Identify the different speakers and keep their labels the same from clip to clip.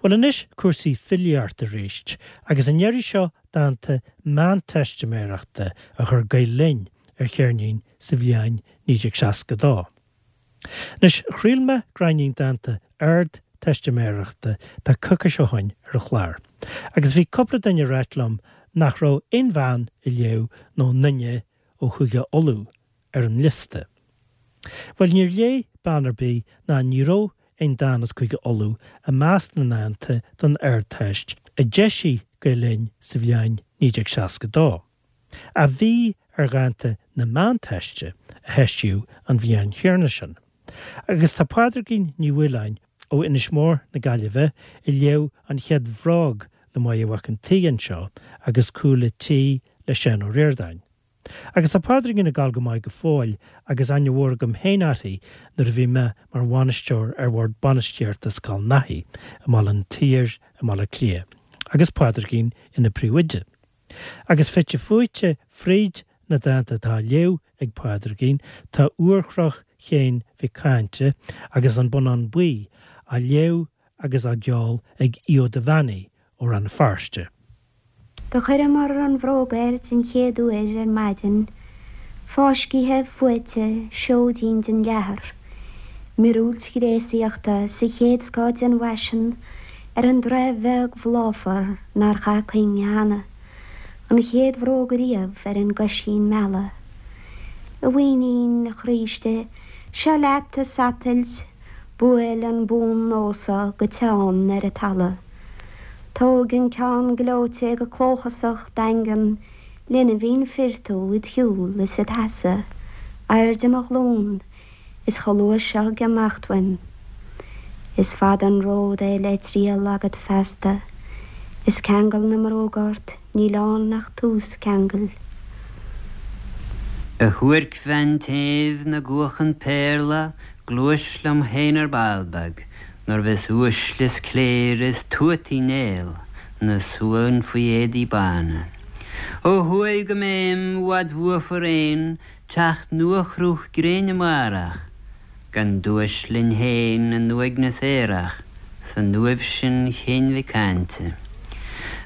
Speaker 1: Bhuel anois cúrsaí filíochta arís, agus an iarraidh seo dánta Meánteistiméireachta a chuir Gael Linn ar cheirnín sa bhliain 1962. Anois, chraol mé gráinnín dánta Ardteistiméireachta tá coicís ó shoin ar an chlár, agus bhí cúpla duine ag ráit liom nach raibh aon bhean a léadh nó aon duine ó Chúige Uladh ar an liosta. Bhuel, níor léigh bean ar bith ná ní raibh aon dán as Cúige Uladh i measc na ndánta don Ardteist a d'eisigh Gael Linn sa bhliain 1962, ach bhí ar dhánta na Meánteiste a heisíodh an bhliain chéanna sin. Agus tá Pádraigín Ní Mhaoláin ó Inis Mór na Gaillimhe a léadh An Chéad Bhróg le Máire Mhac an tSaoi anseo agus Cúl a' Tí le Seán Ó Ríordáin. Agus tá Pádraigín ag gabháil go maith go fóill agus aithne mhór agam féin uirthi nuair a bhí mé mar bhainisteoir ar bhord bainistíochta Scoil Naithí i mBaile an tSaoir i mBaile Átha Cliath agus Pádraigín ina príomhoide. Agus fite fuaite fríd na dánta atá á léamh ag Pádraigín tá Úrchnoc Chéin Mhic Cáinte agus An Bonnán Buí á léamh agus á gceol ag Aodh Ó Duibheannaigh ó Rann na Feirste.
Speaker 2: Do chuireamar an bhróg air den chéad uair ar maidin, fáiscithe, fuaite, seoidín den leathar, miorúilt ghréasaíochta sa chéad scoth den bhfaisean ar an dtráth bheag bhláfar nár chaith cuing cheana, an chéad bhróg ariamh ar an gcoisín meala. A mhuinín, a chroíste, seo leat a satailt, Buail an bun nósa go teann ar an talamh. Tóg an ceann gleoite go clóchasach daingean lena bhinn fir tú id shiúl is id sheasamh, airde mo ghlún, is chomh luath seo ag imeacht uaim. Is fada an ród é le triall agat feasta, is ceangal na mbróg ort níl ann ach tús ceangail.
Speaker 3: A shuaircbhean tséimh 'na gcuachann péarla, Gluais liom féin ar ball beag, Nuair bheas uaisle is cléire is tuata Uí Néill 'na suan faoi éadaí bána. Ó thuaidh go mbéim i bhfad bhuafar aon teacht nua-chruth gréine amárach, Gan duais linn féin in uaigneas aerach san uaimh sin Chéin Mhic Cáinte.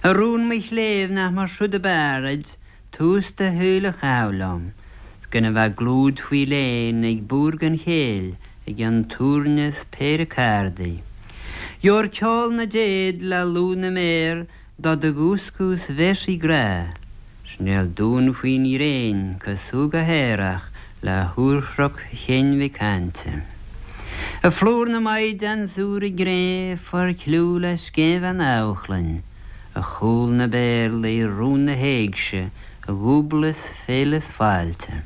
Speaker 3: A rún mo chléibh nach mar siúd ab fhearr duit Tús do shaoil a chaitheamh liom, 's gan a bheith clúid faoi léan ag búir gan chéill i gcionn túirne 's péire cárdaí. Gheobhair ceol na dtéad le lúth na méar do do dhúscadh 's véarsaí grá, 's néal dúinn faoin ghréin cosúil go haerach le húrchnoc Chéin Mhic Cáinte. A phlúr na maighdean 's úr i gcré forchliú le scéinbhean Amharclainn, A chúl na bpéarlaí, rún na héigse, a dhúbla is féile is fáilte.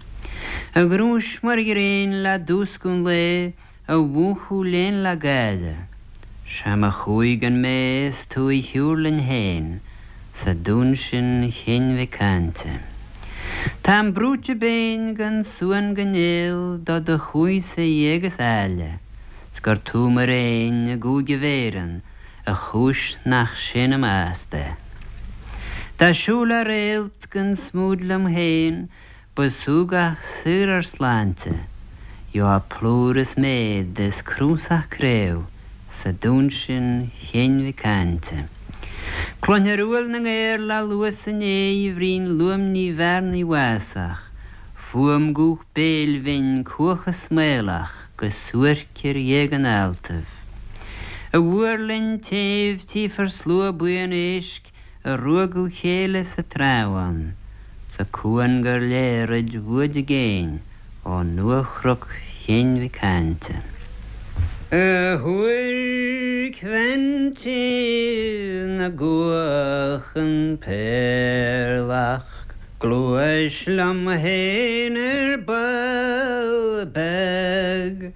Speaker 3: A ghnúis mar ghréin le dúscadh an lae, a mhúchadh léan le gáire. Sea mo chuaigh gan mé is tú a shiúr linn féin sa dún sin Chéin Mhic Cáinte. Táim brúite béinn gan suan gan néal do do chuaigh-sa éag is áille, 's gur tú mo réin i gCúige Bhéireann A chúis nach séanaim fheasta. Dá siúl a réalt gan smúid liom féin ba súgach saor ár sláinte, gheofá plúr is méad is cnuasach craobh sa dún sin Chéin Mhic Cáinte. Cluinfear uaill na ngaor le luas an ae bhrín luaimní bhearnaí bhásach, fuaim guth béil bhinn cuach is maolach. Go suairc ar ghéag an ealtaibh. A mhúirlinn tséimh tchífear slua buíon éisc a ruaigeadh chéile sa trá ann, sa cuan gur léir i bhfuaid i gcéin ó nua-chnoc Chéin Mhic Cáinte. A shuaircbhean tséimh 'na gcuachann péarlach, Gluais liom féin ar ball beag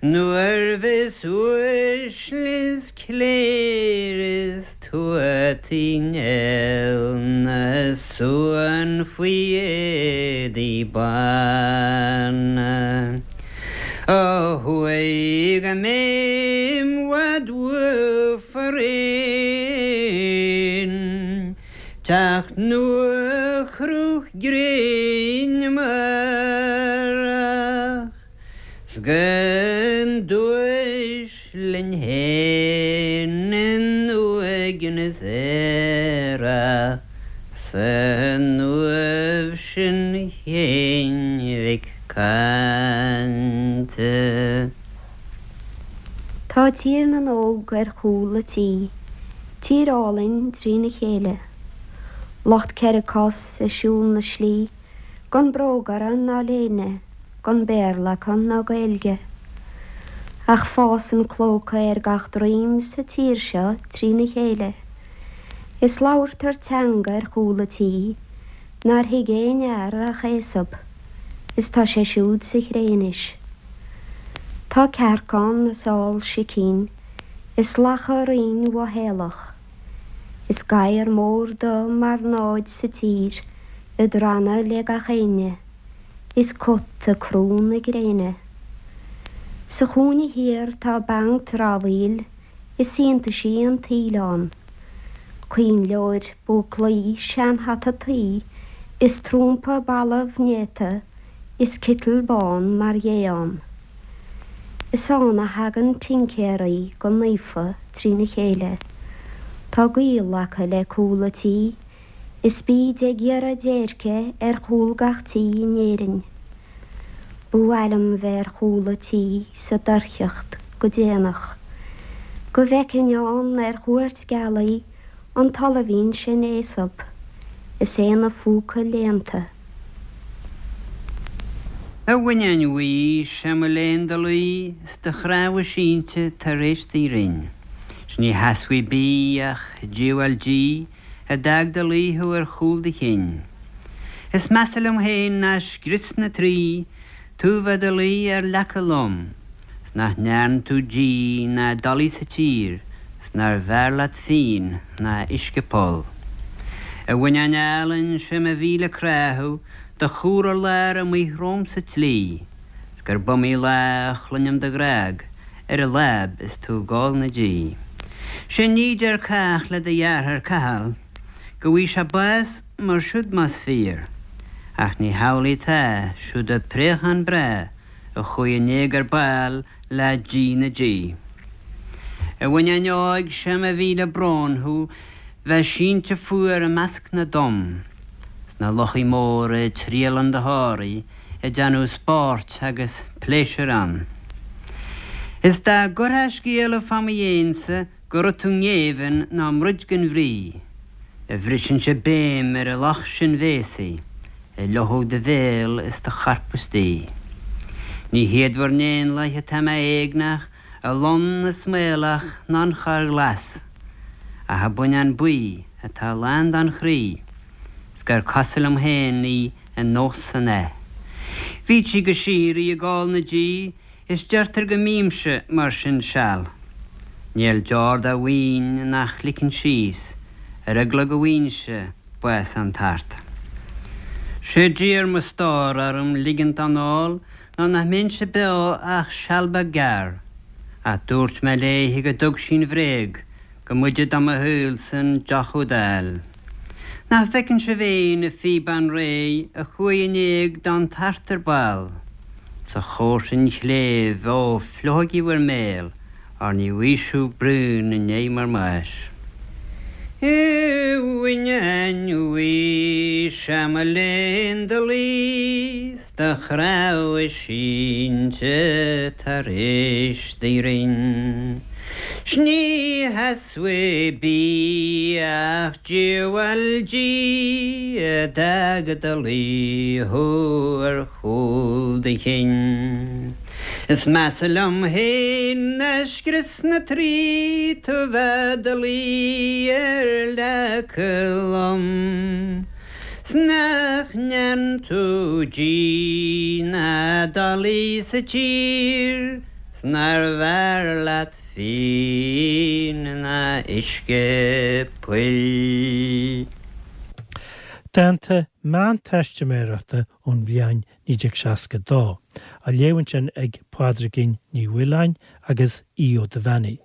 Speaker 3: Nuair bheas uaisle is cléir is Tuatha Uí Néill 'na suan faoi éadaí bána. Ó thuaidh go mbéim bhfad uaibh faraon. Teacht nua-chruth gréine amárach 's gan duais linn fhéin in. éigin is aerach san uaimh sin Shéain Mhic Cainte.
Speaker 2: Tá Tír na nÓg ar chúl a' tí, tír álainn trína chéile. Lucht cheithre cos ag siúl na slí, gan bróg orthu ná léine, gan Béarla acu ná Gaeilge. Ach fásann clóca ar gach droim sa tír seo trína chéile. Is labhartar teanga ar chúl a' tí nár thuig aon fhear ach Aesop, is tá sé siúd sa chré anois. Tá cearc ann is ál sicín is lacha righin mhothaolach, is gadhar mór dubh mar náid sa tír ag drannadh le gach éinne. Is cut ag crú na gréine. Sa chúinne thiar tá banc dramhaíl is iontaisí an tsaoil ann. Coinnleoir, búclaí, seanhata tuí is trumpa balbh néata is citeal bán mar ghé ann. Is ann a thagann tincéaraí go naofa trína chéile. Tá gaol acu le cúl a' tí Is bíd ag iarraidh déirce ar chúl gach tí in Éirinn. Ba mhaith liom bheith ar chúl a' tí sa doircheacht go déanach, go bhfeicfinn ann ar chuairt gealaí an t-ollamhín sin Aesop is é ina phúca léannta.
Speaker 3: A bhuinneáin bhuí, sé mo léan do luí 's do chnámha sínte tar éis do ghrinn. 'S ní sheasfaidh bídh ach diabhal dí A d'fhág 'do luí thú ar chúl do chinn. Is measa liom féin ná scrios na Traí, tú bheith 'do luí ar leaca lom, 's nach ndearn tú dí ná dolaí sa tír, 's nár bhfearr leat fíon ná uisce poll. A bhuinneáin álainn, sé mo mhíle crá thú, do chur ar lár amuigh romham sa tslí, 's gurb iomaí lá a chluinim do ghrág ar an láib is tú ag ól na dí. 'Sé ní deir cách le do dheartháir Cathal go bhfaighidh sé bás mar siúd más fíor, ach ní hamhlaidh atá, siúd an préachán breá a chuaigh in éag ar ball le díth na dí. A bhuinneáin óig, sé mo mhíle brón thú bheith sínte fuar i measc na dtom, 's na luchaí móra ag triall 'un do thórraimh, ag déanamh spóirt agus pléisiúir ann. Is dá gcuirtheá scéala fá mo dhéinse go raibh tú i ngéibheann ná i mbroid gan bhrí, a bhrisinnse béim ar an lucht sin bhéasaí a fhliuchfadh do bhéal is do chorp istoíche. Ní hiad bhur n-éanlaith atá mé éagneach, a lon is maolach ná an chorr ghlas, ach a buinneán buí atá lán den chroí 's gur cosúil liom féin í an nós san aith. Bhíd sí go síoraí ag ól na dí is deirtear go mbímse mar sin seal. Níl deor dá mhaoin nach ligfinn síos ar eagla go bhfaighinnse bás an tart. Sé d'iarr mo stór orm ligint don ól ná nach mbeinnse beo ach seal beag gearr, ach dúirt mé léithe go dtug sí an bhréag Go mb'fhaide do mo shaolsa an deoch úd a fháil. Nach bhfeiceann sibh féin a phíobán réidh a chuaigh in éag don tart ar ball? 'S a chomharsain chléibh, ó, fliuchaigí bhur mbéal, óir ní bhfaighidh sibh braon i ndiaidh bhur mbáis. A bhuinneáin bhuí, sé mo léan do luí 's do chnámha sínte tar éis do ghrinn. 'S ní sheasfaidh bídh ach diabhal dí a d'fhág i do luí thú ar chúl do chinn. Is measa liom féin ná scrios na Traí tú bheith i do luí ar leaca lom. 'S nach ndearn tú dí ná dolaí sa tír 's nár bhfearr leat fíon ná uisce poill.
Speaker 1: Dánta meánteistiméireachta ón bhliain 1962, á léamh ansin ag Pádraigín Ní Mhaoláin agus Aodh Ó Duibheannaigh.